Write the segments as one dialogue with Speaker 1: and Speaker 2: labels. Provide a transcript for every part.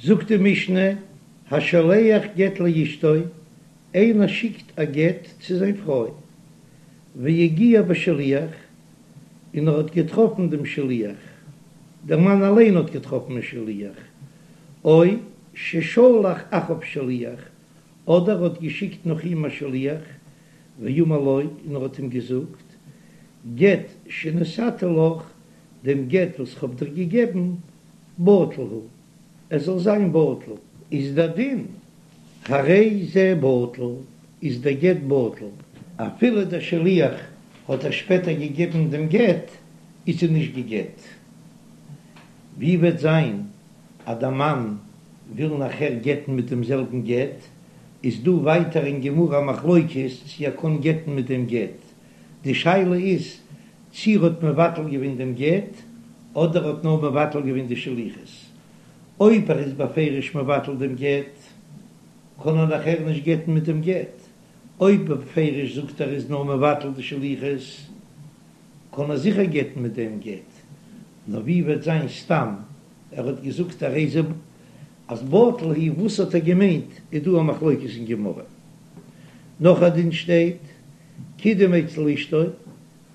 Speaker 1: זאגט די משנה, השולח גט לאשתו, איינער שיקט א גט צו זיין פרוי, והגיע בשליח, און ער האט געטראפן דעם שליח, דער מאן אליין האט געטראפן א שליח, או ששלח אחריו שליח, אדער ער האט געשיקט נאך אים א שליח, ואמר לו, און ער האט אים געזאגט, גט שנתתי לך, דעם גט וואס כ'האב דיר געגעבן, בטל הוא, עס זאל זיין בטל. איז דער דין, הרי זה בטל, איז דער גט בטל. אפילו דער שליח האט איר שפעטער געגעבן דעם גט, איז זי נישט גע'גט. ווי וועט זיין אז דער מאן וויל נאכער גט'ן מיט דעם זעלבן גט, איז דא ווייטער אין גמרא א מחלוקת צי ער קען גט'ן מיט דעם גט, די שאלה איז צי ער האט מבטל געווען דעם גט אדער האט נאר מבטל געווען די שליחות, אויב ער איז בפירוש מבטל דעם גט קען ער נאכער נישט גט'ן מיט דעם גט, אויב בפירוש זאגט ער איז נאר מבטל די שליחות קען ער זיכער גט'ן מיט דעם גט, נאר ווי וועט זיין סתם ער האט געזאגט הרי זה אז בטל הוא, וואס האט ער געמיינט איז דא א מחלוקת אין גמרא. נאך א דין שטייט קידם אצל אשתו,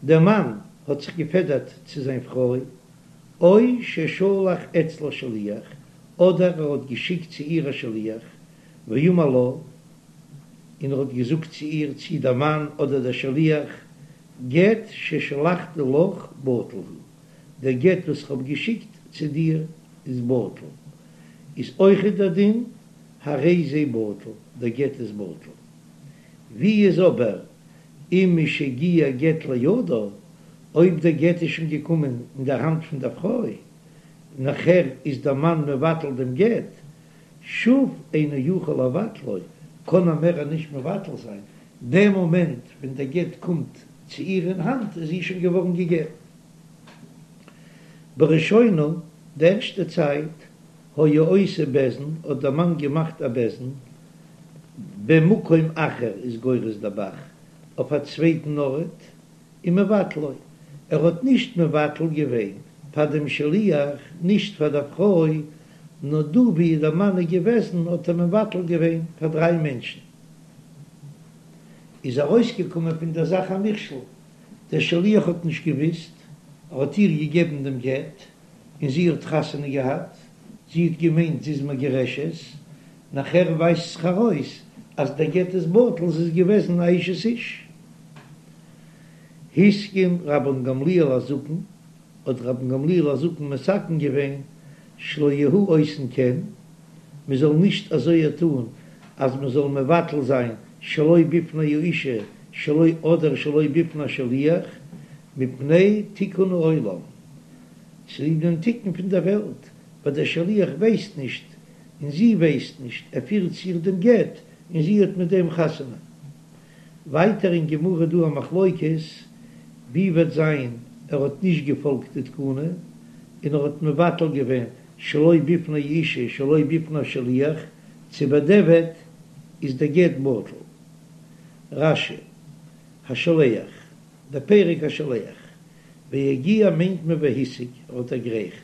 Speaker 1: דער מאן האט זיך געפעדערט צו זיין פרוי, או ששלח אצלה שליח, אדער ער האט געשיקט צו איר א שליח, ואמר לה, און ער האט געזאגט צו איר, צי דער מאן אדער דער שליח, גט ששלחתי לך בטל הוא, דער גט וואס איך האב געשיקט צו דיר איז בטל, איז אויכעט דער דין, הרי זה בטל, דער גט איז בטל. ווי איז אבער אם משהגיע גט לידה, אויב דער גט איז שוין געקומען אין דער האנט פון דער פרוי, נאכער איז דער מאן מבטל דעם גט, שוב אינו יכול לבטלו, קען ער מער נישט מבטל זיין, דעם מאמענט ווען דער גט קומט צו איר אין האנט איז זי שוין געווארן גע'גט. בראשונה, די ערשטע צייט, היה עושה בית דין, האט דער מאן געמאכט א בית דין, במקום אחר איז גורס דער ב"ח, אויף א צווייטן ארט, ומבטלו, ער האט נישט מבטל געווען פאר דעם שליח, נישט פאר דער פרוי, נאר דא ווי דער מאן איז געוועזן האט ער מבטל געווען פאר דריי מענטשן. איז ארויסגעקומען פון דער זאך א מכשול, דער שליח האט נישט געוואוסט, ער האט איר געגעבן דעם גט, און זי האט חתונה געהאט, זי האט געמיינט זי איז מגורשת, נאכער ווייזט זיך ארויס אז דער גט איז בטל, זי איז געוועזן א אשת איש. התקין רבן גמליאל הזקן, האט רבן גמליאל הזקן מתקן געווען שלא יהו עושין כן, מען זאל נישט אזוי טאן אז מען זאל מבטל זיין שלא בפני האישה שלא אדער שלא בפני השליח, מפני תיקון העולם, צוליב דעם תיקון פון דער וועלט, ווייל דער שליח ווייסט נישט און זי ווייסט נישט, ער פירט צו איר דעם גט און זי האט מיט דעם חתונה. ווייטער אין גמרא דא א מחלוקת ווי וועט זיין ער האט נישט געפאלגט די תקנה און ער האט מבטל געווען שלא בפני האישה שלא בפני השליח צו בדיעבד איז דער גט בטל. רש"י, השולח, דער פרק השולח, והגיע מיינט מען והשיג, ער האט דערגרייכט,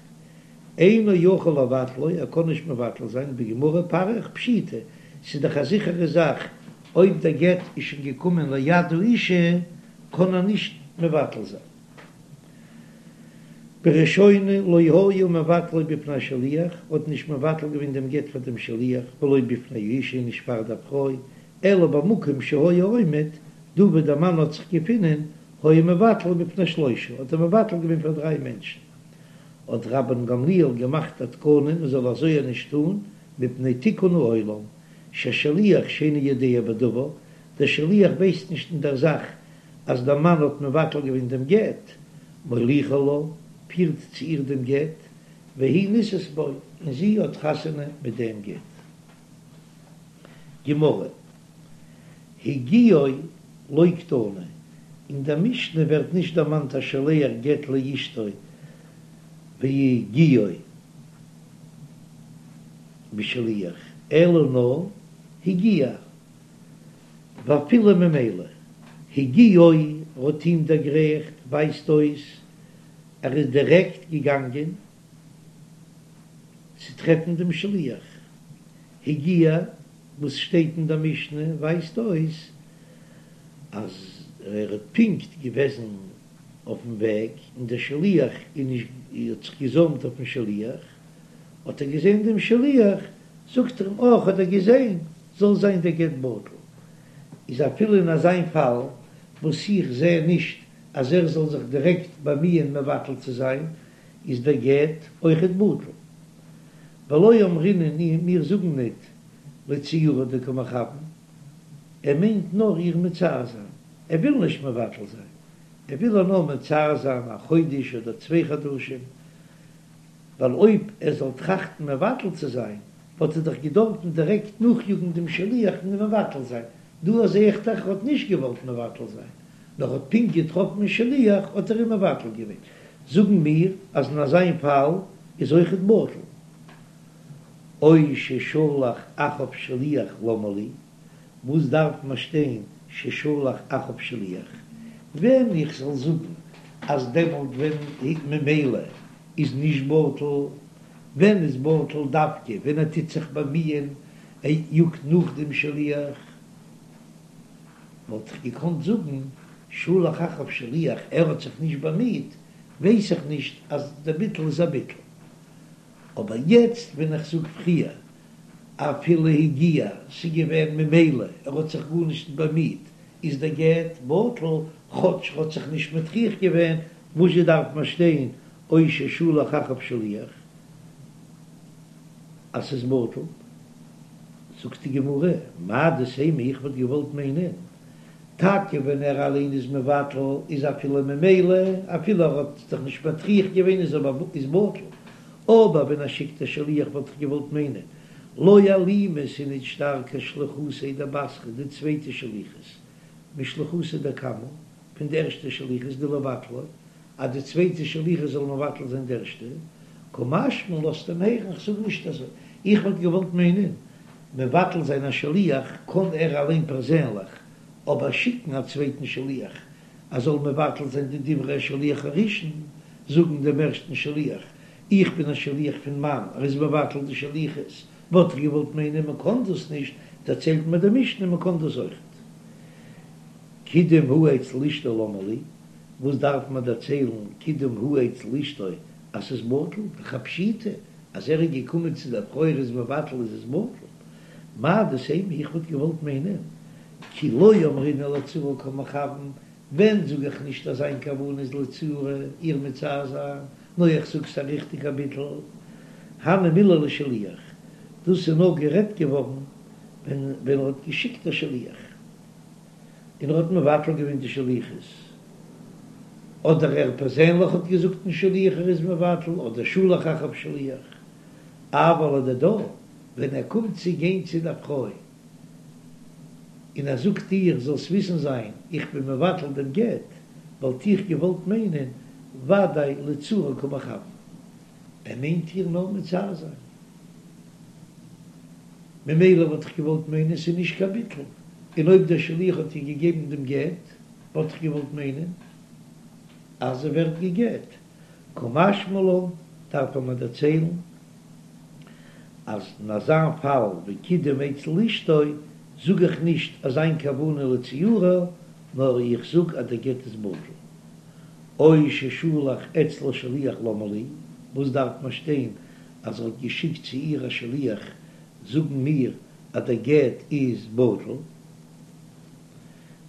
Speaker 1: אינו יכול לבטלו, ער קען נישט מבטל זיין, בגמרא פריך פשיטא, ס'איז דאך א זיכערע זאך, אויב דער גט איז שוין געקומען ליד האישה, קען ער נישט מבטל זיין. בראשונה לא היה מבטלו בפני השליח, האט נישט מבטל געווען דעם גט פאר דעם שליח, ולא בפני האישה, נישט פאר דער פרוי, אלא במקום שהיה עומד, דא וואו דער מאן האט זיך געפונען, היה מבטלו בפני שלושה, האט ער מבטל געווען פאר דריי מענטשן. האט רבן גמליאל געמאכט א תקנה מען זאל אזוי נישט טון, מפני תיקון העולם, ששליח שאינו יודע בדבר, דער שליח ווייסט נישט אין דער זאך אז דער מאן האט מבטל געווען דעם גט, מוליכו לה, פירט צו איר דעם גט, והיא נישאת בו, און זי האט חתונה מיט דעם גט. גמרא, הגיעו לא קתני, אין דער משנה ווערט נישט דערמאנט השולח גט לאשתו והגיעו בשליח, אלא נאר הגיע, ואפילו ממילא הגיעו האט אים דערגרייכט ווייזט אויס ער איז דירעקט געגאנגען. צו טרעפן דעם שליח. הגיע, וואס שטייט אין דער משנה ווייזט אויס אז ער האט פונקט געוועזן אויפן וועג און דער שליח איז נישט האט זיך געזוימט אויפן שליח, האט ער געזען דעם שליח, זאגט ער אים אה כ'האב דיר געזען, זאל זיין דער גט בטל. איז אפילו אין אזיין פאל וואס איך זע נישט אז ער זאל זיך דירעקט באמיען מבטל צו זיין, איז דער גט אויכעט בטל. ולא אמרינן מיר זאגן ניט לצעורה דקא מכוון, ער מיינט נאר איר מצער זיין, ער וויל נישט מבטל זיין, ער וויל איר נאר מצער זיין א חודש אדער צוויי חדשים, ווייל אויב ער זאל טראכטן מבטל צו זיין, וואלט ער דאך געדארפן דירעקט נאכיאגן דעם שליח און אים מבטל זיין, דא זע איך דאך ער האט נישט געוואלט מבטל זיין, נאר האט פונקט געטראפן שליח האט ער אים מבטל געווען, זאגן מיר אז אין אזיין פאל איז אויכעט בטל. או ששלח אחריו שליח למה לי, וואס דארף מען שטיין ששלח אחריו שליח? ווען איך זאל זאגן אז דעמאלט ווען ממילא איז נישט בטל, ווען איז בטל דווקא ווען ער טוט זיך באמיען ער יאגט נאך דעם שליח, וואלט איך געקאנט זאגן שלח אחריו שליח ער האט זיך נישט באמיט, ווייס איך נישט אז דער ביטול איז א ביטול. אבער יעצט ווען איך זאג פריער אפילו הגיע, ס'איז געווען ממילא ער האט זיך גארנישט נישט באמיט, איז דער גט בטל, כאטש ער האט זיך נישט מטריח געווען, וואזשע דארף מען שטיין או ששלח אחריו שליח אז ס'איז בטל? זאגט די גמרא, מהו דתימא איך וואלט געוואלט מיינען, טאקע ווען ער אליין איז מבטל איז אפילו ממילא, אפילו ער האט זיך נישט מטריח געווען איז אבער איז בטל, אבער ווען ער שיקט א שליח וואלט איך געוואלט מיינען, לא אלימא ס'איז נישט שטארקער שליחותיה דבתרא די צווייטע שליחות משליחותיה דקמא פון די ערשטע שליחות דלבטלה אז די צווייטע שליחות זאל מבטל זיין די ערשטע, קא משמע לן לאזט אים הערן איך זאג נישט אזוי, איך וואלט געוואלט מיינען מבטל זיין א שליח קען ער אליין פערזענליך, אבער שיקן א צווייטן שליח אז זאל מבטל זיין די דברי השליח הראשון, זאגן דעם ערשטן שליח איך בין א שליח פון מאן, ער איז מבטל די שליחות, וואלט איך געוואלט מיינען מען קען דאס נישט, דערציילט מיר די משנה מען קען דאס אויכעט. קידם הוא אצל אשתו למה לי, וואס דארף מען דערציילן קידם הוא אצל אשתו אז ס'איז בטל, דאך א פשיטא אז ער איז געקומען צו דער פרוי ער איז מבטל איז עס בטל, מהו דתימא איך וואלט געוואלט מיינען כי לא אמרינן לצעורה קא מכוון, ווען זאג איך נישט אז זיין כוונה איז לצעורה איר מצער זיין, נאר איך זאג ס'א ריכטיגע ביטול, הני מילי לשליח, דאס איז נאר גערעדט געווארן ווען ווען ער האט געשיקט א שליח. און ער האט מבטל געווען די שליחות, אדער ער פערזענליך האט געזאגט דעם שליח ער איז מבטל, אדער שלח אחריו שליח, אבל לדידה, ווען ער קומט צו גיין צו דער פרוי און ער זאגט איר זאלסט וויסן זיין איך בין מבטל דעם גט, וואלט איך געוואלט מיינען ודאי לצעורה קא מכוון, ער מיינט איר נאר מצער זיין. ממילא וואלט איך געוואלט מיינען ס'איז נישט קיין ביטול, און אויב דער שליח האט איר געגעבן דעם גט, וואלט איך געוואלט מיינען אז זי ווערט גע'גט. קא משמע לן, דארף ער מיר דערציילן אז אין אזא פאל ווי קידם אצל אשתו, זאג איך נישט אז זיין כוונה לצעורה, נאר איך זאג אז דער גט איז בטל. או ששלח אצלה שליח למה לי, וואס דארף מען שטיין אז ער האט געשיקט צו איר א שליח זאגן מיר אז דער גט איז בטל,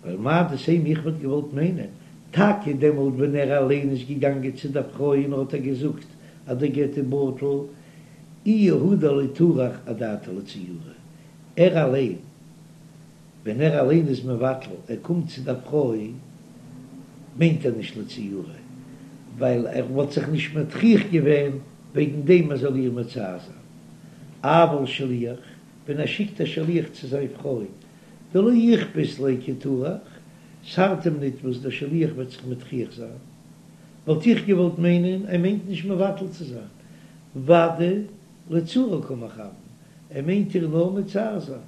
Speaker 1: ווייל מהו דתימא איך וואלט געוואלט מיינען, טאקע דעמאלט ווען ער אליין איז געגאנגען צו דער פרוי און האט איר געזאגט אז דער גט איז בטל, איהו הוא דלא טרח אדעתיה לצעורה, ער אליין ווען ער אליין איז מבטל, ער קומט צו דער פרוי, מיינט ער נישט לצעורה, ווייל ער וואלט זיך נישט מטריח געווען וועגן דעם ער זאל איר מצער זיין. אבל שליח, ווען ער שיקט א שליח צו זיין פרוי, דלא איכפת ליה כי טרח, ס'ארט אים ניט וואס דער שליח וועט זיך מטריח זיין, וואלט איך געוואלט מיינען ער מיינט נישט מבטל צו זיין, ודאי לצעורה קא מכוון, ער מיינט איר נאר מצער זיין.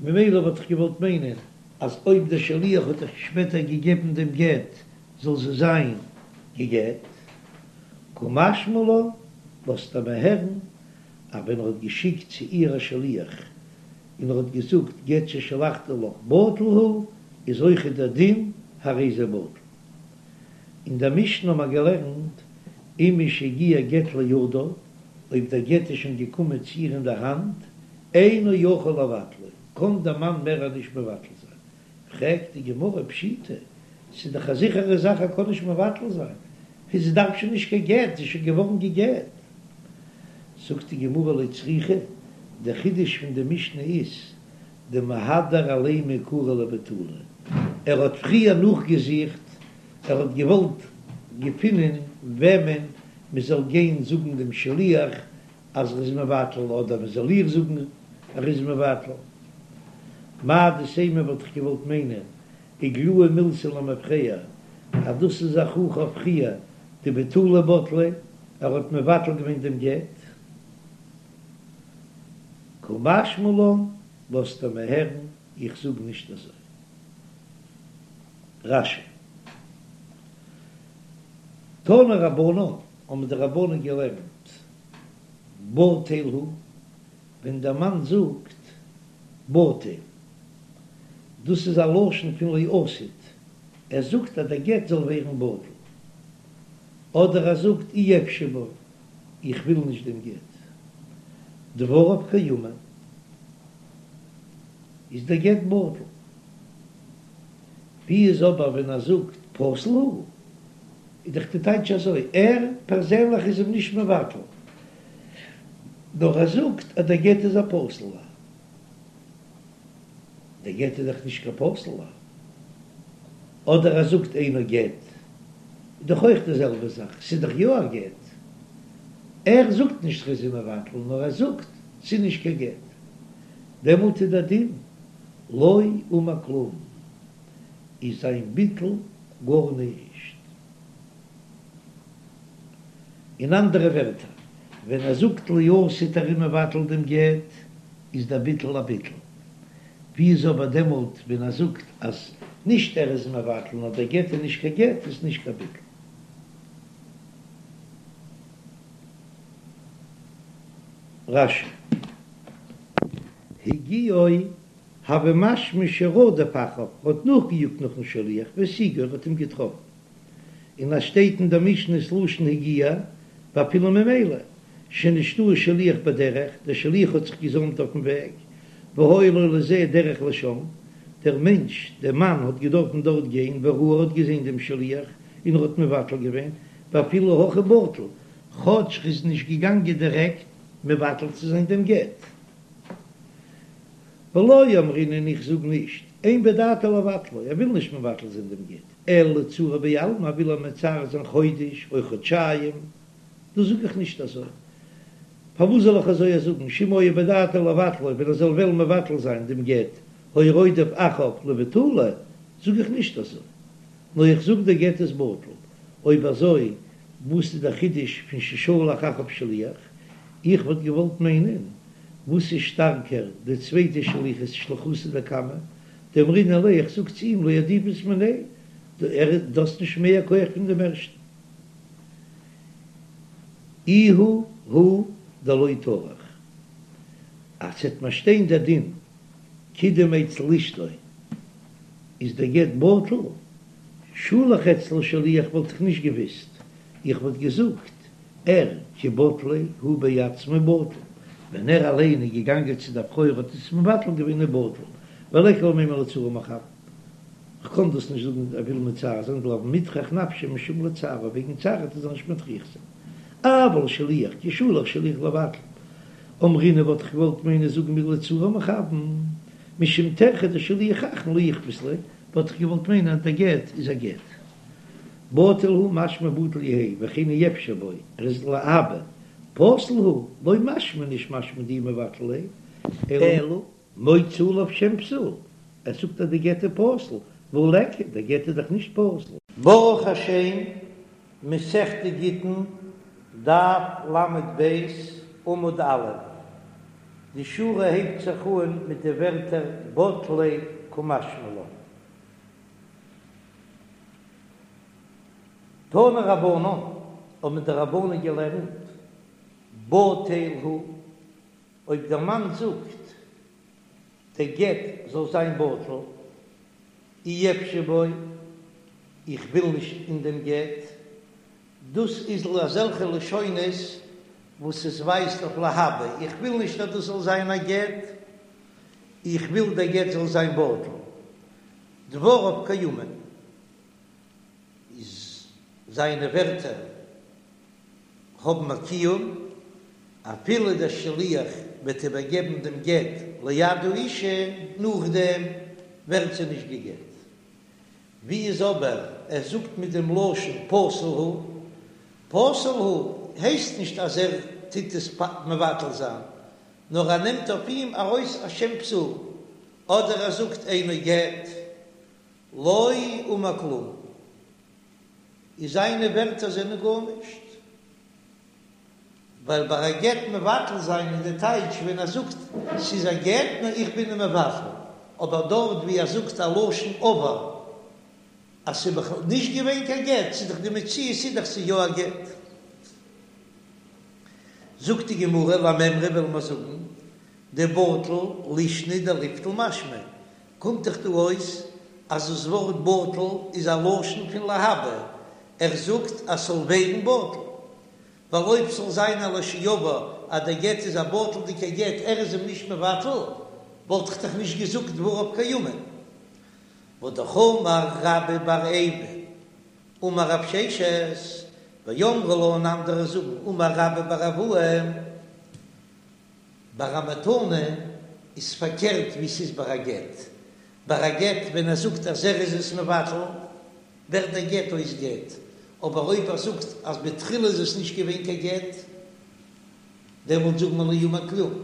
Speaker 1: ממילא וואלט איך געוואלט מיינען אז אויב דער שליח האט איר שפעטער געגעבן דעם גט זאל זי זיין גע'גט. קא משמע לן. לאזט ער מיר הערן אז ווען ער האט געשיקט צו איר א שליח און ער האט געזאגט גט ששלחתי לך בטל הוא, איז אויכעט דער דין הרי זה בטל. אין דער משנה האבן מיר געלערנט אם משהגיע גט לידה, אויב דער גט איז שוין געקומען צו איר אין דער האנט, אינו יכול לבטלו, קען דער מאן מער נישט מבטל זיין. פרעגט די גמרא פשיטא, ס'איז דאך א זיכערע זאך ער קען נישט מבטל זיין, זי דארף שוין נישט קיין גט, זי איז שוין געווארן גע'גט. זאגט די גמרא לא צריכא, דער חידוש פון די משנה איז, דמהדר עליה מעיקרא לבטולי, ער האט פריער נאכגעזוכט, ער האט געוואלט געפינען וועמען מען זאל גיין זאגן דעם שליח אז ער איז מבטל, אדער מען זאל איר זאגן ער איז מבטל. מהו דתימא וואלט איך געוואלט מיינען, איגלאי מילתא למפרע, אז דאס איז א הוכחה אויף פריער דבטולי בטליה, ער האט מבטל געווען דעם גט. קא משמע לן, לאזט ער מיר הערן, איך זאג נישט אזוי. רש"י. תנו רבנן, האבן די רבנן געלערנט, בטל הוא, ווען דער מאן זאגט בטל, דאס איז א לשון פון לעתיד, ער זאגט אז דער גט זאל ווערן בטל, אדער ער זאגט אי אפשי בו, איך וויל נישט דעם גט, דבריו קיימין, איז דער גט בטל. ווי איז אבער ווען ער זאגט פסול הוא, איז דאך די טייטש אזוי, ער פערזענליך איז אים נישט מבטל, נאר ער זאגט אז דער גט איז א פסול'ער. דער גט איז דאך נישט קיין פסול'ער. אדער ער זאגט אינו גט, איז דאך אויך די זעלבע זאך, ס'איז דאך יא א גט. ער זאגט נישט ר'איז אים מבטל, נאר ער זאגט ס'איז נישט קיין גט. דעמאלט איז דער דין לא אמר כלום, איז זיין ביטול גארנישט. אין אנדערע ווערטער, ווען ער זאגט לעתיד ער איז מבטל דעם גט, איז דער ביטול א ביטול. ווי איז אבער דעמאלט ווען ער זאגט אז נישט ער איז מבטל נאר דער גט איז נישט קיין גט, איז נישט קיין ביטול. רש"י. הגיעו הוי משמע שרדף אחריו, האט נאכגעיאגט נאכן שליח, והשיגו, ער האט אים געטראפן. און אז שטייט אין דער משנה ס'לשון הגיע, ואפילו ממילא, שנשתהא שליח בדרך, דער שליח האט זיך געזאמט אויפן וועג, והיה לו לזה דרך לשם, דער מענטש, דער מאן האט געדארפן דארט גיין, וראה ער האט געזען דעם שליח, און ער האט מבטל געווען, ואפילו הכי בטל, כאטש ר'איז נישט געגאנגען דירעקט מבטל צו זיין דעם גט. ולא אמרינן און איך זאג נישט, אין בדעתו לבטלו, ער וויל נישט מבטל זיין דעם גט, אלא לצעורה בעלמא, ער וויל אים מצער זיין חודש או חודשיים, דאס זאג איך נישט אזוי. פארוואס זאל איך אזוי זאגן, שאם היה בדעתו לבטלו, ווען ער זאל וועלן מבטל זיין דעם גט, היה רודף אחריו לבטולו, זאג איך נישט אזוי. נאר איך זאג דער גט איז בטל. אויב אזוי וואס איז דער חידוש פון ששלח אחריו שליח? איך וואלט געוואלט מיינען, וואס איז שטארקער די צווייטע שליחות שליחותא דקמא, דאמרינן ליה איך זאג צו אים לא עדיפת מיניה, דו האסט נישט מער כח פון דעם ערשטן. איהו הוא דלא טרח. אז ס'עט מיר שטיין דער דין קידם אצל אשתו איז דער גט בטל, שלח אצלה שליח וואלט איך נישט געוויסט, איך וואלט געזאגט ער כי בטליה הוא בעצמו בטל, ווען ער אליין איז געגאנגען צו דער פרוי האט עס מבטל געווען איז בטל, וליכא למימר לצעורה מכוון, כ'קען דאס נישט זאגן ער וויל מצער זיין דלא מטרח נפשיה משום לצערה וועגן צער וועט ער זיך נישט מטריח זיין, אבל שליח כי שלח שליח לבטל, אמרינן וואלט איך געוואלט מיינען זאגן מיר לצעורה מכוון, משום טרחא דשליח אחרון לא איכפת ליה, וואלט איך געוואלט מיינען אז דער גט איז א גט. בטל הוא משמע בטל יהא וכן אי אפשי בו, ער איז להבא. פסול הוא, לא משמע נישט משמע דאיהו מבטל ליה, אלא מוציא עליו שם פסול, ער זאגט אז די גט איז פסול, והא ליכא, דער גט איז דאך נישט פסול. ברוך השם, מסכת גיטין, דף ל"ב, עמוד א', די שורה הייבט זיך אן מיט די ווערטער בטליה קמשמע לן. תנו רבנן, האבן די רבנן געלערנט. בטל הוא, אויב דער מאן זאגט דער גט זאל זיין בטל, אי אפשי בו, איך וויל נישט אין דעם גט, דאס איז אזעלכע לשונות וואס עס ווייזט אויף להבא, איך וויל נישט אז דאס זאל זיין א גט, איך וויל דער גט זאל זיין בטל. דבריו קיימין, איז זיינע ווערטער האבן א קיום, אפילו דער שליח וועט איבערגעבן דעם גט ליד האישה, נאכדעם ווערט זי נישט גע'גט. ווי איז אבער ער זאגט מיט דעם לשון פסול הוא, פסול הוא הייסט נישט אז ער טוט עס מבטל זיין, נאר ער נעמט אויף אים ארויס א שם פסול, אדער ער זאגט אינו גט, לא אמר כלום, איז זיינע ווערטער זענען גארנישט, ווייל ביי א גט מבטל זיין איז די טייטש ווען ער זאגט ס'איז א גט נאר איך בין אים מבטל, אבער דארט ווי ער זאגט א לשון עבר אז ס'איז בכלל נישט געווען קיין גט, ס'איז דאך די מציאות איז דאך ס'איז יא א גט. זאגט די גמרא למימרא וועלן מיר זאגן דבטל לישנא דליבטל משמע, קומט דאך דא אויס אז דאס ווארט בטל איז א לשון פון להבא, ער זאגט אז ס'זאל ווערן בטל, ווייל אויב ס'זאל זיין א לשעבר אז דער גט איז א בטל'דיגער גט ער איז אים נישט מבטל, וואלט איך דאך נישט געזאגט דבריו קיימין. והאמר רבה בר איבו אמר רב ששת, ואמרי לה און אנדערע זאגן אמר רבה בר אבוה, ביי א מתנה איז פארקערט ווי ס'איז ביי א גט, ביי א גט ווען ער זאגט אז ער איז עס מבטל ווערט דער גט אויס גט, אבער אויב ער זאגט אז בתחילה איז עס נישט געווען קיין גט דעמאלט זאגט מען לא אמר כלום.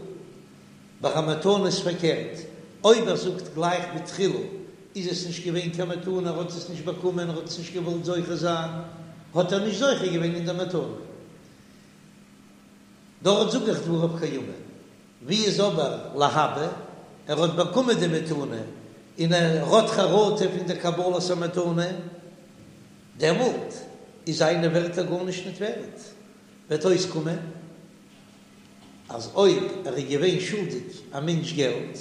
Speaker 1: ביי א מתנה איז פארקערט, אויב ער זאגט גלייך בתחילה איז עס נישט געווען קיין מתנה ער האט עס נישט באקומען ער האט עס נישט געוואלט זוכה זיין האט ער נישט זוכה געווען אין דער מתנה. דארט זאג איך דבריו קיימין. ווי איז אבער להבא, ער האט באקומען די מתנה און ער האט חרטה פון די קבלת המתנה, דעמאלט איז זיינע ווערטער גארנישט ניט ווערט, וועט אויסקומען אז אויב ער איז געווען שולדיג א מענטש געלט,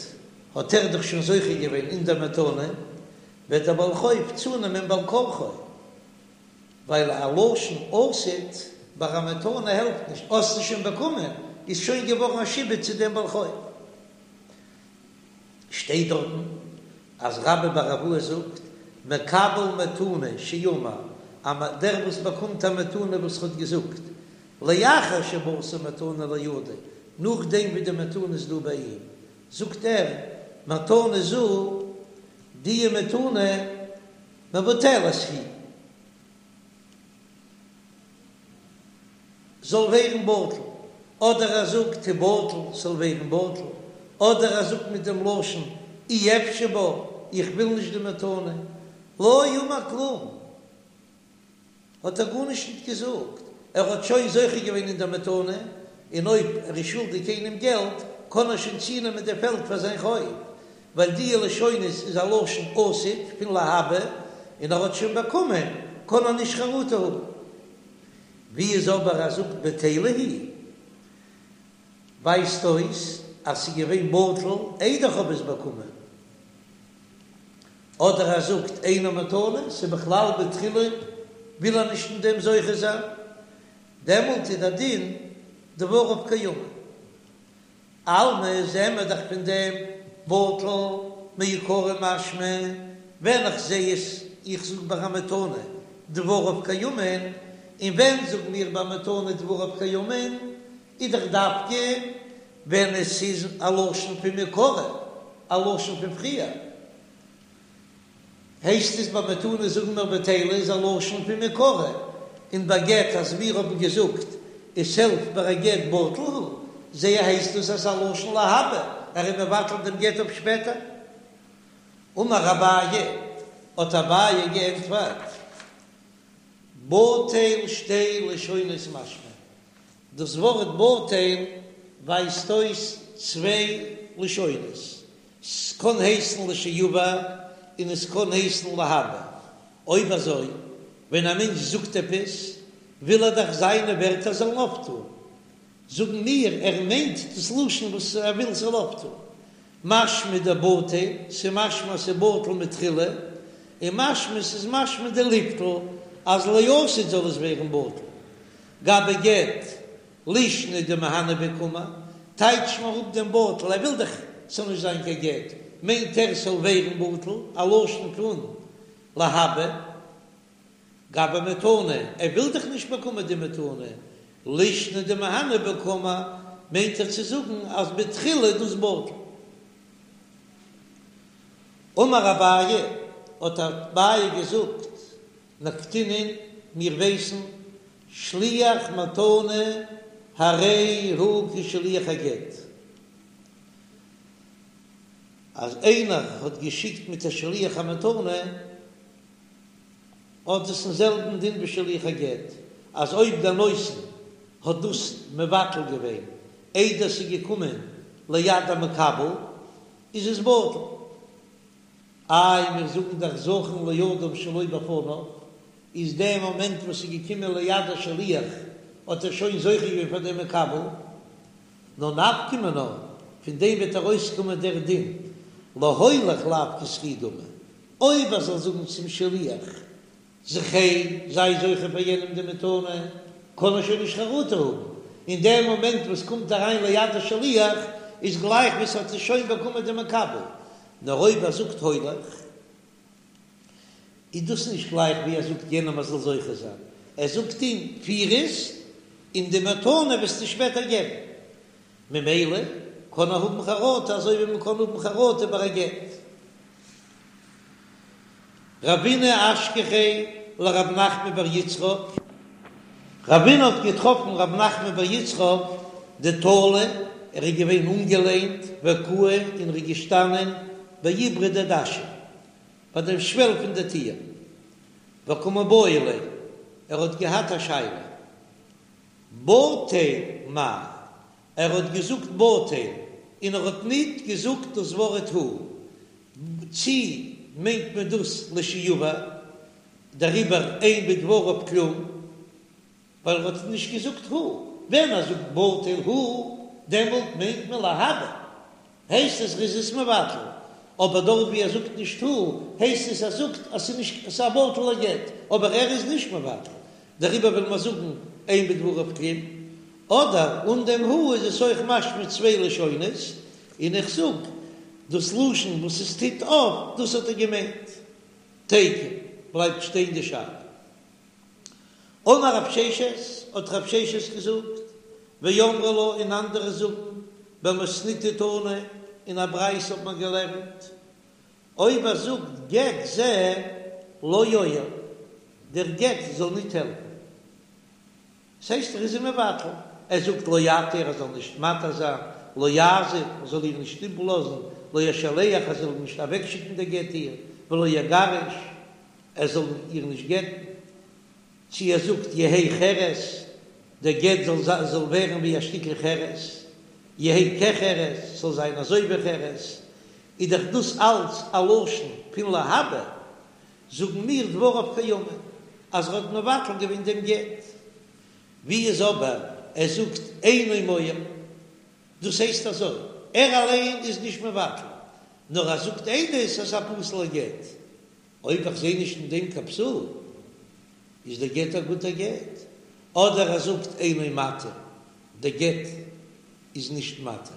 Speaker 1: האט ער דאך שוין זוכה געווען אין דער מתנה, וועט דער בעל חוב צונעמען בעל כרחו. ווייל א לשון עתיד ביי א מתנה העלפט נישט, האסט עס שוין באקומען, איז שוין געווארן א שעבוד צו דעם בעל חוב. שטייט דארטן אז רבה בר אבוה זאגט, מקבל מתנה שאמר, אז דער וואס באקומט א מתנה וואס האט געזאגט, לאחר שבאת מתנה לידו, נאכדעם ווי די מתנה איז דא ביי אים, זאגט ער, מתנה זו, די מתנה, מבוטלת היא, זאל ווערן בטל, אדער ער זאגט תבטל ס'זאל ווערן בטל, אדער ער זאגט מיט דעם לשון אי אפשי בה, איך וויל נישט די מתנה, לא אמר כלום. האט ער גארנישט ניט געזאגט, ער האט שוין זוכה געווען אין דער מתנה, און אויב ער איז שולדיג איינעם געלט, קען ער שוין צונעמען די פעלד פאר זיין חוב, ווייל די לשונות איז א לשון עתיד פון להבא, און ער האט שוין באקומען, קען ער נישט חרטה האבן. ווי איז אבער ער זאגט בטלה היא, ווייזט אויס אז ס'איז געווען בטל איידער כ'האב עס באקומען. אדער ער זאגט אינה מתנה, ס'איז בכלל בתחילה וויל ער נישט אין דעם זוכה זיין, דעמאלט איז דער דין דבריו קיימין. אלמא זעהן מיר דאך פון דעם בטל מעיקרא משמע, ווען איך זעה עס איך זאג ביי א מתנה דבריו קיימין, און ווען זאגן מיר ביי מתנה דבריו קיימין, איז דאך דווקא ווען עס איז א לשון פון מעיקרא, א לשון פון פריער, הייסט עס ביי מתנה זאגן מיר בטלה איז א לשון פון מעיקרא, און ביי גט אז מיר האבן געזאגט עס העלפט ביי א גט בטל הוא, זעה הייסט דאס אז ס'איז א לשון להבא, ער איז מבטל דעם גט אויף שפעטער. אמר אביי, האט אביי געענטפערט, בטל שתי לשונות משמע, דאס ווארט בטל ווייזט אויס צוויי לשונות, ס'קען הייסן לשעבר און עס קען הייסן להבא. אויב אזוי, ווען א מענטש זאגט עפעס, וויל ער דאך זיינע ווערטער זאלן אויפטון. זאגן מיר ער מיינט דאס לשון וואס ער וויל ס'זאל אויפטון. משמע דבטל, ס'משמע אז ס'בטל מתחילה, און משמע ס'איז משמע דליבטל אז לעתיד זאל עס ווערן בטל. גבי גט לישנא דמהני ביה קאמר, טייטש מיר אפ דעם בטל, ער וויל דאך ס'זאל נישט זיין קיין גט, מיינט ער ס'זאל ווערן בטל, א לשון פון להבא. גבי מתנה, ער וויל דאך נישט באקומען די מתנה, לישנא דמהני ביה קאמר, מיינט ער צו זאגן אז בתחילה איז דאס בטל. אמר אביי, האט אביי געזאגט, נקטינן, מיר ווייסן, שליח מתנה הרי הוא כשליח הגט, אז איינער האט געשיקט מיט א שליח א מתנה, האט עס דעם זעלבן דין ווי שליח הגט, אז אויב דער נותן האט דאס מבטל געווען איידער ס'איז געקומען ליד המקבל, איז עס בטל. איי מיר זאגן דאך זכין לאדם שלא בפניו, איז דער מאמענט וואס ס'איז געקומען ליד השליח האט ער שוין זוכה געווען פאר דעם מקבל, נאר נפקא מינה, פון דעם וועט ארויסקומען דער דין להוליך לאו כזכי דמי, אויב ער זאל זאגן צום שליח, זכה, זיי זוכה פאר יענעם די מתנה, קען ער שוין נישט חרטה האבן, אין דעם מאמענט וואס קומט אריין ליד השליח, איז גלייך ווי ס'האט עס שוין באקומען די מקבל, נאר אויב ער זאגט הולך, איז דאס נישט גלייך ווי ער זאגט יענעם ער זאל זוכה זיין, ער זאגט אים פיר עס, און די מתנה וועסטו שפעטער געבן, ממילא קען ער האבן חרטה אזוי ווי מ'קען האבן חרטה ביי א גט. רבינא אשכחיה לרב נחמן בר יצחק, רבינא האט געטראפן רב נחמן בר יצחק דתלי, ער איז געווען אנגעלענט וקאי און ער איז געשטאנען בעיברא דדשא ביי דעם שוועל פון די טיר, וקא מיבעיא ליה, ער האט געהאט א שאלה, בטל מאי, ער האט געזאגט בטל און ער האט ניט געזאגט דאס ווארט הוא, צי מיינט מען דאס לשעבר, דעריבער אין בדבריו כלום, ווייל ער האט נישט געזאגט הוא, ווען ער זאגט בטל הוא, דעמאלט מיינט מען להבא, הייסט עס ר'איז עס מבטל, אבער דארט ווי ער זאגט נישט הוא, הייסט עס ער זאגט אז ס'איז נישט ס'איז א בטל'ער גט, אבער ער איז נישט מבטל, דעריבער וויל מען זאגן אין בדבריו כלום, אדער אן דעם הוא איז עס אויך משמע צוויי לשונות, און איך זאג דאס לשון וואס עס טוט אויף, דאס האט ער געמיינט. תיקו, בלייבט שטיין די שאלה. אמר רב ששת, האט רב ששת געזאגט, ואמרי לה און אנדערע זאגן, במתניתא תנא, אין א ברייתא האט מען געלערנט, אויב ער זאגט גט זה לא יועיל, דער גט זאל ניט העלפן. ס'הייסט ער איז אים מבטל, ער זאגט לא יתיר ער זאל נישט מתיר זיין, לא יעזיב ער זאל איר נישט איבערלאזן, לא ישלח ער זאל נישט אוועקשיקן די גט איר, ולא יגרש ער זאל איר נישט גט'ן, צי ער זאגט יהא חרס דער גט זאל זאל ווערן ווי א שטיקל חרס, יהא כחרס זאל זיין אזוי ווי חרס, איז דאך דאס אלץ א לשון פון להבא, זאגן מיר דבריו קיימין אז ער האט מבטל געווען דעם גט, ווי איז אבער ער זאגט אינו מועיל, דאס הייסט אזוי, ער אליין איז נישט מבטל, נאר ער זאגט עדות אז ס'איז א פסול'ער גט, אויב איך זעה נישט אין דעם קיין פסול, איז דער גט א גוטער גט, אדער ער זאגט אינו מתיר, דער גט איז נישט מתיר,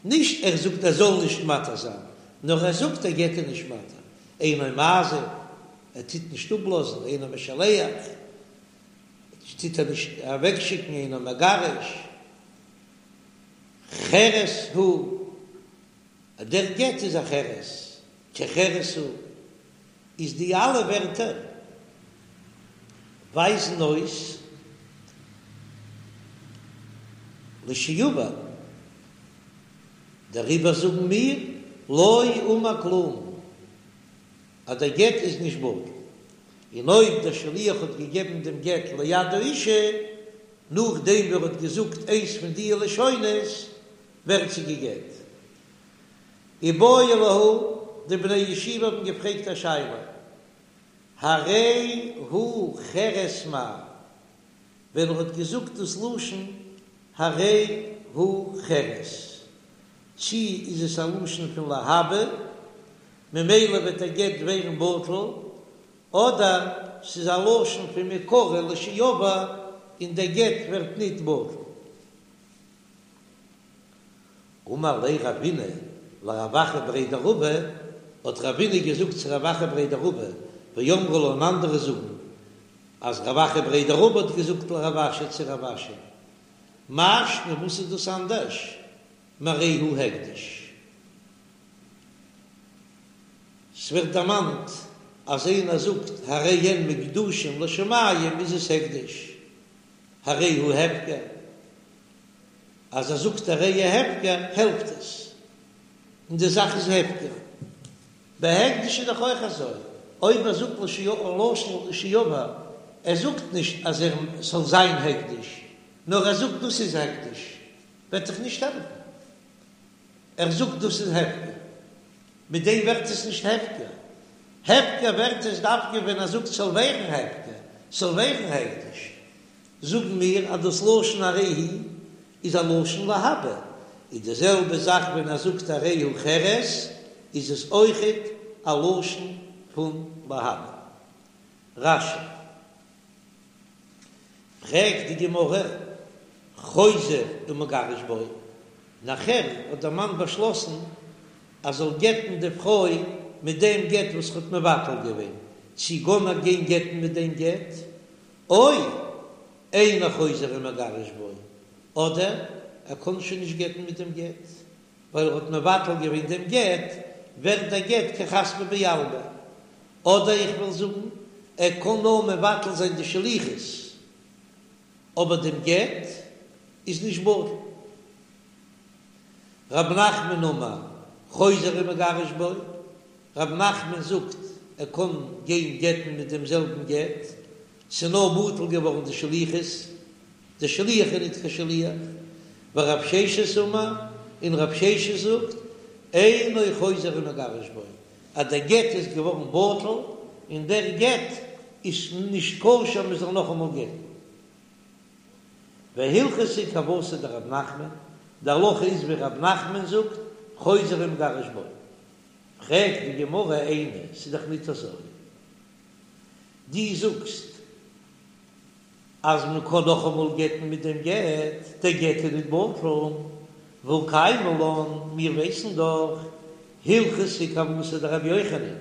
Speaker 1: נישט ער זאגט ער זאל נישט מתיר זיין, נאר ער זאגט דער גט איז נישט מתיר, אינו מעזיב, ער טוט נישט אפלאזן, אינו משלח, טוט ער נישט אוועקשיקן, אינו מגרש, חרס הוא, דער גט איז א חרס, כחרס הוא, איז די אלע ווערטער ווייזן אויס לשעבר, דעריבער זאגן מיר לא אמר כלום אז דער גט איז נישט בטל, און אויב דער שליח האט געגעבן דעם גט ליד האישה נאכדעם ווי ער האט געזאגט איינס פון די לשונות ווערט זי גע'גט. איבעיא להו, די בני ישיבה האבן געפרעגט א שאלה, הרי הוא חרס מהו, ווען ער האט געזאגט דאס לשון. הרי הוא חרס, צי איז עס א לשון פון להבא, ממילא וועט דער גט ווערן בטל, אדער ס'איז א לשון פון מעיקרא לשעבר און דער גט ווערט ניט בטל. אמר ליה רבינא לרב אחא בריה דרבא, האט רבינא געזאגט צו רב אחא בריה דרבא, ואמרי לה און אנדערע זאגן אז רב אחא בריה דרבא האט געזאגט לרב אשי צו רב אשי, מאי שנא וואס איז דאס אנדערש מהרי הוא הקדש? ס'ווערט דערמאנט אז איינער זאגט הרי הן מוקדשין לשמים איז עס הקדש, הרי הוא הפקר, אז ער זאגט הרי הוא הפקר העלפט עס, און די זאך איז הפקר. ביי הקדש איז דאך אויך אזוי, אויב ער זאגט לשון לשעבר, ער זאגט נישט אז ער ס'זאל זיין הקדש, נאר ער זאגט דאס איז הקדש, וועט דאך נישט העלפן. ער זאגט דאס איז הפקר, מיט דעם ווערט עס נישט הפקר. הפקר ווערט עס דווקא ווען ער זאגט ס'זאל ווערן הפקר, ס'זאל ווערן הקדש. זאגן מיר אז דאס לשון הרי הוא איז א לשון להבא, איז די זעלבע זאך ווען ער זאגט הרי הוא חרס איז עס אויכעט א לשון פון להבא. רש"י. פרעגט די גמרא, חוזר ומגרש בו, נאכער האט דער מאן באשלאסן אז זאל גט'ן די פרוי מיט דעם גט וואס ער האט מבטל געווען, צי קען ער גיין גט'ן מיט דעם גט, או אינו חוזר ומגרש בו, אדער ער קען שוין נישט גט'ן מיט דעם גט, ווייל ער האט מבטל געווען דעם גט, ווערט דער גט כחספא בעלמא. אדער איך וועל זאגן, ער קען נאר מבטל זיין די שליחות, אבער דעם גט איז נישט בטל. רב נחמן אמר חוזר ומגרש בו, רב נחמן זאגט ער קען גיין גט'ן מיט דעם זעלבן גט, ס'איז נאר בטל געווארן די שליחות, דער שליח איז ניט קיין שליח, ורב ששת אמר, און רב ששת זאגט, אינו חוזר ומגרש בו, אז דער גט איז געווארן בטל, און דער גט איז נישט כשר מען זאל נאכאמאל גט'ן. והלכתא כוותיה דרב נחמן, די הלכה איז ווי רב נחמן זאגט, חוזר ומגרש בו. פרעגט די גמרא איני, ס'איז דאך ניט אזוי. דו זאגסט אז מען קען נאכאמאל גט'ן מיט דעם גט, דער גט איז ניט בטל, והא קיימא לן, מיר ווייסן דאך, הלכתא כוותיה דרבי יוחנן,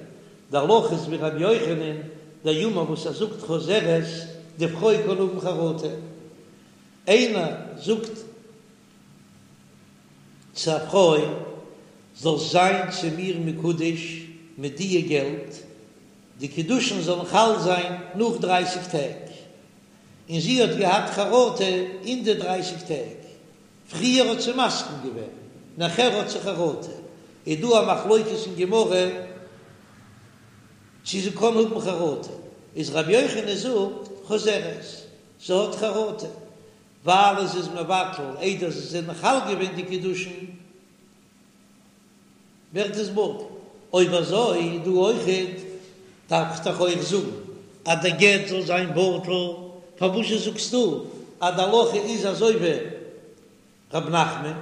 Speaker 1: די הלכה איז ווי רבי יוחנן, דאמר וואס ער זאגט חוזרת, די פרוי קען האבן חרטה. איינער זאגט צו א פרוי, זאלסט זיין צו מיר מקודש מיט דיע געלט, די קידושין זאלן חל זיין נאך דרייסיג טעג, און זי האט געהאט חרטה אין די דרייסיג טעג, פריער האט זי מסכים געווען, נאכער האט זי חרטה, איז דא א מחלוקת אין גמרא צו זי קען האבן חרטה, איז רבי יוחנן זאגט חוזרת, זי האט חרטה, ווייל עס איז מבטל איידער זיי זענען חל געווען די קידושין, ווערט עס בטל. אויב אזוי דא אויכעט דארף איך דאך אויך זאגן אז דער גט זאל זיין בטל, פארוואזשע זאגסטו אז די הלכה איז אזוי ווי ר' נחמן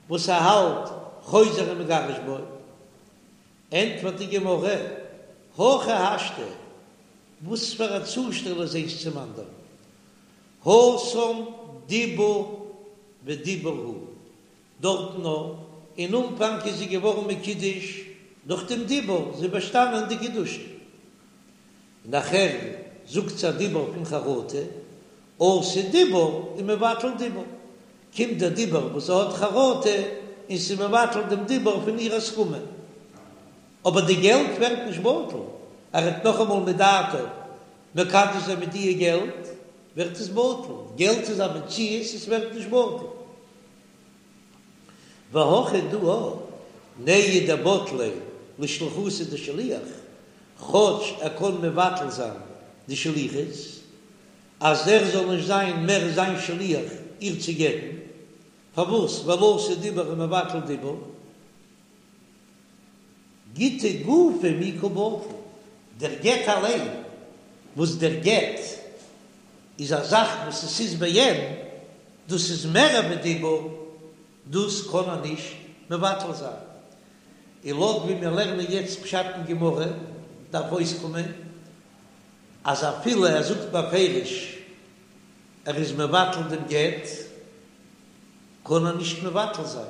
Speaker 1: וואס ער האלט חוזר ומגרש בו? ענטפערט די גמרא, הכי השתא, וואס פאר א צושטעל איז איינס צום אנדערן, התם דיבור ודיבור הוא, דארטן נאר אין אנפאנג איז זי געווארן מקודש דורך דעם דיבור, זי איז באשטאנען די קידושין, נאכער זאגט זי א דיבור פון חרטה, אתי דיבור ומבטל דיבור, קומט דער דיבור וואס זי האט חרטה און ס'איז מבטל דעם דיבור פון איר הסכמה, אבער די געלט ווערט נישט בטל, ער וועט נאכאמאל מדעתה מקדש זיין מיט דיע געלט, ווערט עס בטל, געלט איז א מציאות עס ווערט נישט בטל. והכא דא נהי דבטליה לשליחותיה דשליח, כאטש ער קען מבטל זיין די שליחות אז ער זאל נישט זיין מער זיין שליח איר צו גט'ן, פארוואס ווייל אתי דיבור ומבטל דיבור, גיטא גופא מי קא בטיל, דער גט אליין, וואס דער גט איז א זאך וואס עס איז בעין. דאס איז מער ווי דיבור, דאס קען ער נישט מבטל זיין. און לויט ווי מיר לערנען יעצט פשט אין גמרא, דארף אויסקומען אז אפילו ער זאגט בפירוש ער איז מבטל דעם גט, קען ער נישט מבטל זיין,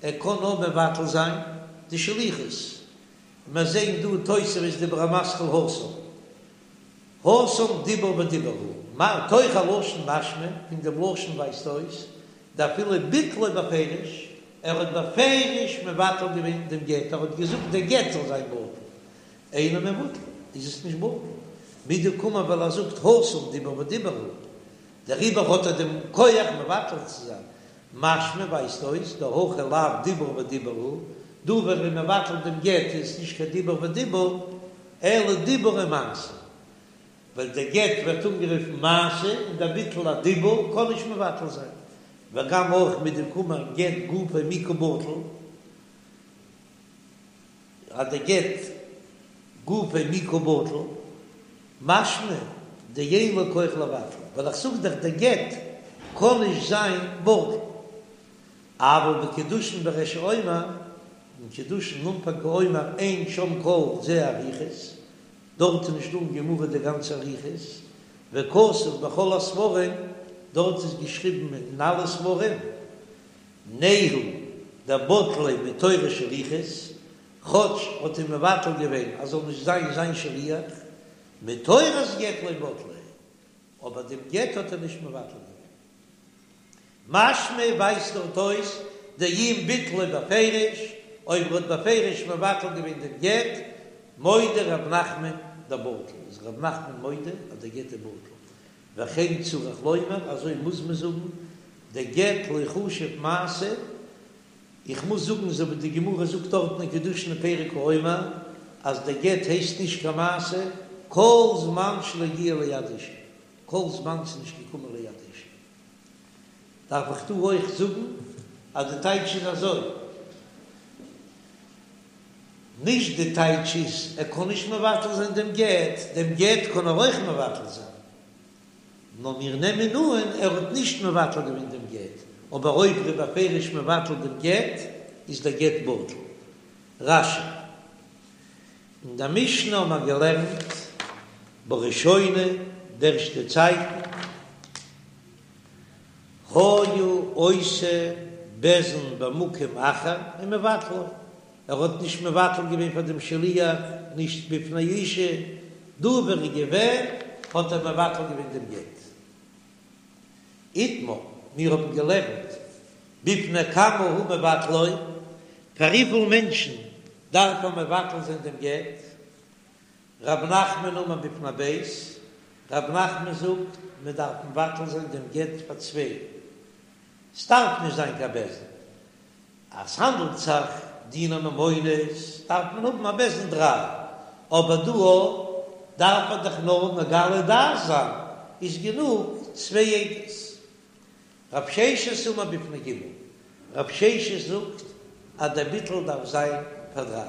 Speaker 1: ער קען נאר מבטל זיין די שליחות. מיר זעהן דא תוספות דיבור המתחיל התם, התם דיבור ודיבור הוא, מתוך הלשון משמע, פון דעם לשון ווייזט אויס, דאפילו ביטלו בפירוש, ער האט בפירוש מבטל געווען דעם גט, ער האט געזאגט דער גט זאל זיין בטל, אינו מבוטל, איז עס נישט בטל, מדקאמר ווייל ער זאגט התם דיבור ודיבור הוא, דעריבער האט ער דעם כח מבטל צו זיין, משמע ווייזט אויס דהכא לאו דיבור ודיבור הוא, דא ווען ער איז מבטל דעם גט איז עס נישט קיין דיבור ודיבור, אלא דיבור ומעשה, ווייל דער גט ווערט אנגערופן מעשה און דער ביטול א דיבור קען נישט מבטל זיין, וגם אויך מדקאמר גט גופיה מי קא בטיל. אז דער גט גופיה מי קא בטיל, משמע דאין לו כח לבטל, ווייל איך זאג דאך דער גט קען נישט זיין בטל, אבל בקידושין בריש האומר, אין קידושין אנפאנג האומר אין שם כל זה אריכות, דארט איז נישט דא אין גמרא די גאנצע אריכות, וכתוב בכל הספרים, דארט איז געשריבן אין אלע ספרים, נהי דבטליה מתורת שליחות, כאטש האט אים מבטל געווען אז זאל נישט זיין זיין שליח, מתורת גט לא בטליה, אבער דעם גט האט ער נישט מבטל געווען. משמע ווייזט דארט אויס דאם ביטלו בפירוש, אויב ער האט בפירוש מבטל געווען דעם גט, מודה ר' נחמן דבטיל, איז ר' נחמן מודה אז דער גט איז בטל, וכן צריך לומר, אזוי מוז מען זאגן, דגט לא חשיב מעשה, איך מוז זאגן אזוי ווי די גמרא זאגט דארטן אין קידושין פרק האומר, אז דער גט הייסט נישט קיין מעשה כל זמן שלא הגיע ליד אישה, כל זמן ס'איז נישט געקומען ליד אישה. דארף איך דא אויך זאגן אז די טייטש איז אזוי. נישט די טייטש איז ער קען נישט מבטל זיין דעם גט, דעם גט קען ער אויך מבטל זיין, נאר מיר נעמען אן ער האט נישט מבטל געווען דעם גט, אבער אויב ער איז בפירוש מבטל דעם גט איז דער גט בטל. רש"י. אין דער משנה האבן מיר געלערנט בראשונה די ערשטע צייטן היה עושה בית דין במקום אחר ומבטלו, ער האט נישט מבטל געווען פאר דעם שליח, נישט בפני אשה, דא ווער ער איז געווען האט ער מבטל געווען דעם גט. איתמר, מיר האבן געלערנט בפני כמה הוא מבטלו, פאר וויפיל מענטשן דארף ער מבטל זיין דעם גט? רב נחמן אמר בפני ב', רב נחמן זאגט מען דארף מבטל זיין דעם גט פאר צוויי, ס'דארף נישט זיין קיין בית דין, אז ס'האנדלט זיך דיני ממונות דארף מען האבן א בית דין דריי, אבער דא דארף ער דאך נאר מגלה דעת זיין, איז גענוג צוויי עדות. רב ששת אמר בפני ג', רב ששת זאגט אז דער ביטול דארף זיין פאר דריי.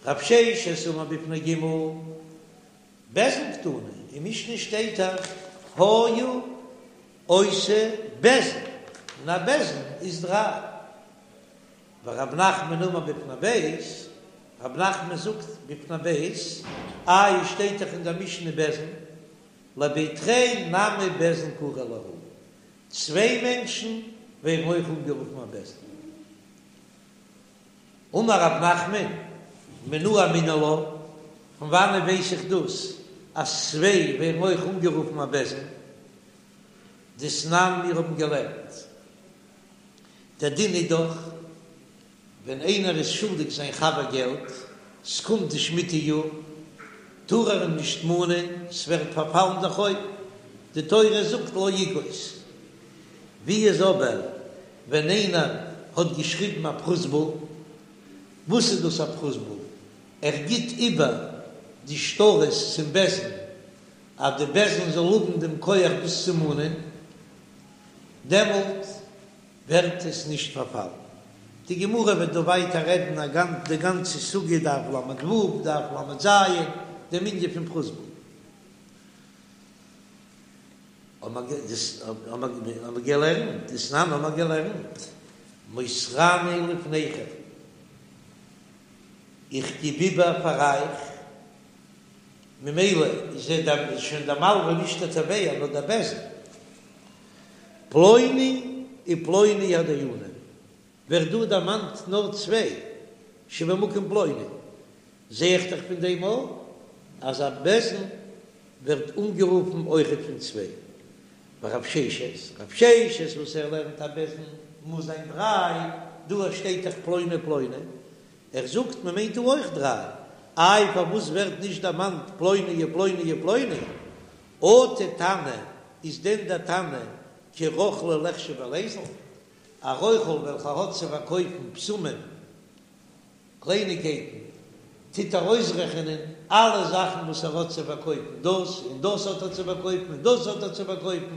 Speaker 1: רב ששת אמר בפני ג', בית דין קתני, אין משנה שטייט דאך היה עושה בית דין, און א בית דין איז דריי. ורב נחמן אמר בפני ב', רב נחמן זאגט בפני ב', איי שטייט דאך אין דער משנה בית דין, לבי תרי נמי בית דין קרי להו, צוויי מענטשן ווערן אויך אנגערופן א בית דין. אמר רב נחמן, מנא אמינא לה, פון וואנעט ווייס איך דאס אז צוויי ווערן אויך אנגערופן א בית דין? דתנן מיר האבן געלערנט, דער דין איז דאך ווען איינער איז שולדיג זיין חבר געלט, ס'קומט די שמיטה יאר, טאר ער אים נישט מאנען, ס'ווערט פארפאלן דער חוב, די תורה זאגט לא יגוש. ווי איז אבער ווען איינער האט געשריבן א פרוזבול? וואס איז דאס א פרוזבול? ער גיט איבער די שטרות צום בית דין אז די בית דין זאל האבן דעם כח דאס צו מאנען, דעמאלט ווערט עס נישט פארפאלן. די גמרא וועט דא ווייטער רעדן א גאנ די גאנצע סוגיא דף ל"ו, דף ל"ז, דעם ענין פון פרוזבול. האבן מיר געלערנט, דתנן האבן מיר געלערנט, מוסרני לפניכם, איך גיב איבער פאר אייך, ממילא איז ער שוין דער מלווה נישט דער תובע נאר דער בית דין, פלוני ופלוני הדיינים, ווערט דא דערמאנט נאר צוויי שבמקום פלוני, זע איך דאך פון דעם אויך אז א בית דין ווערט אנגערופן אויכעט פון צוויי. ורב ששת, רב ששת וואס ער לערנט א בית דין מוז זיין דריי, דא שטייט דאך פלוני פלוני, ער זאגט מען מיינט דא אויך דריי, איי פארוואס ווערט נישט דערמאנט פלוני ופלוני ופלוני? אטו תנא, איז דען דער תנא כרוכלא ליחשיב וליזיל? א רוכל וועלכער האט צו פארקויפן בשמים קלייניגקייטן, טוט ער אויסרעכענען אלע זאכן וואס ער האט צו פארקויפן, דאס און דאס האט ער צו פארקויפן און דאס האט ער צו פארקויפן,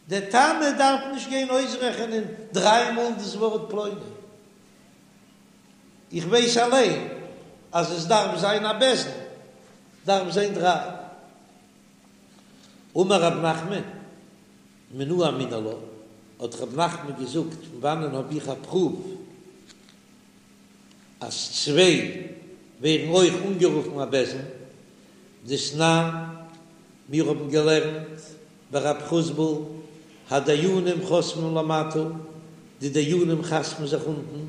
Speaker 1: דער תנא דארף נישט גיין אויסרעכענען דריי מאל דאס ווארט פלוני, איך ווייס אליין אז עס דארף זיין א בית דין, דארף זיין דריי. אמר רב נחמן, מנא אמינא לה, האט רב נחמן געזאגט, פון וואנען האב איך א פרוף אז צוויי ווערן אויך אנגערופן א בית דין, דתנן, מיר האבן געלערנט ביי רב חוסבול, הדיינים חותמים למטה, די דיינים חתמ'ן זיך אונטן,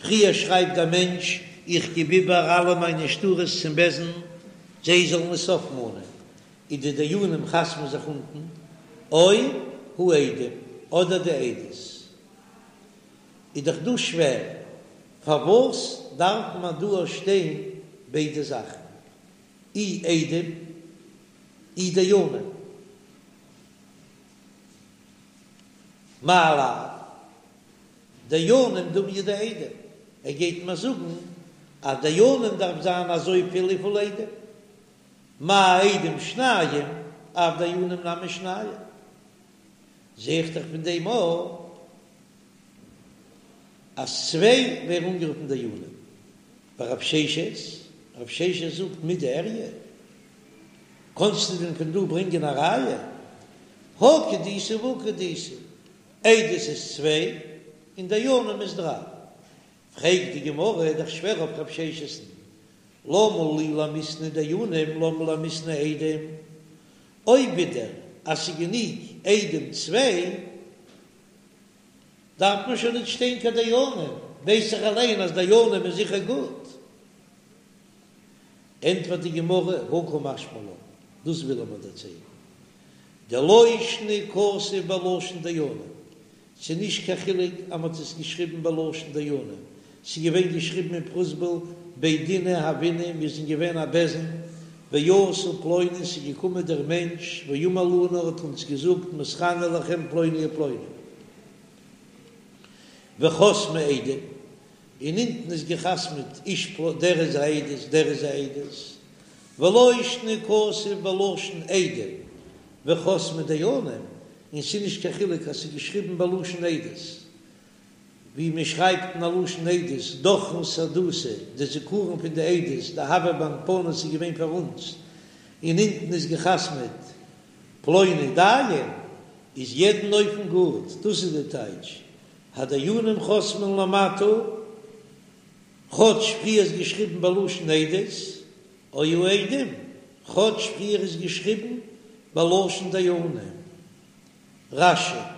Speaker 1: פריער שרייבט דער מענטש איך גיב איבער אלע מיינע שטרות צום בית דין זיי זאלן עס אויפמאנען, און די דיינים חתמ'ן זיך אונטן, או העדים, אדער די עדות. איז דאך דא שווער, פארוואס דארף מען דא שטיין ביידע זאכן, אי עדים אי דיינים? מאי לאו דיינים דומיא דעדים, ער גייט מיר זאגן אז דיינים דארף זיין אזויפיל וויפיל עדים, מה עדים שניים אף דיינים נמי שניים, זע איך דאך פון דעם אויך אז צוויי ווערן אנגערופן דיינים. ורב ששת, רב ששת זאגט מידי איריא, קאנסטו דען פון דא ברענגען א ראיה? הא כדאיתא והא כדאיתא, עדות איז צוויי און דיינים איז דריי. פרעגט די גמרא, איז דאך שווער אויף רב ששת'ן, למה לי למיתני דיינים למה למיתני עדים, אויב ווידער אז ס'איז גענוג עדים צוויי, דארף מען שוין נישט שטיין קיין דיינים, ווייס איך אליין אז דיינים איז זיכער גוט. ענטפערט די גמרא, הא קא משמע לן, דאס וויל ער מיר דערציילן, דלא שנא כתוב בלשון דיינים, ס'איז נישט קיין חילוק אז מ'האט עס געשריבן בלשון דיינים, ס'איז געווען געשריבן אין פרוזבול בי דינא הוינן, מיר זענען געווען א בית דין, ואתא פלוני, ס'איז געקומען דער מענטש, ואמר לנו האט אונז געזאגט מוסרני לכם פלוני ופלוני. וחתמו עדים, און אונטן איז געחתמעט איש פלוני, דער איז א עדות, דער איז א עדות, ולא שנא כתוב בלשון עדים וחתמו דיינים, און ס'איז נישט קיין חילוק אז ס'איז געשריבן בלשון עדות, ווי מען שרייבט אין א לשון עדות, דכרין סהדותא, די זיכרון פון די עדות, דהוה באנפנא ס'איז געווען פאר אונז, און אונטן איז געחתמעט פלוני דיין, איז יעדן אופן גוט, דאס איז די טייטש, הדיינים חותמים למטה, כאטש פריער איז געשריבן בלשון עדות, או העדים, כאטש פריער איז געשריבן בלשון דיינים. רש"י.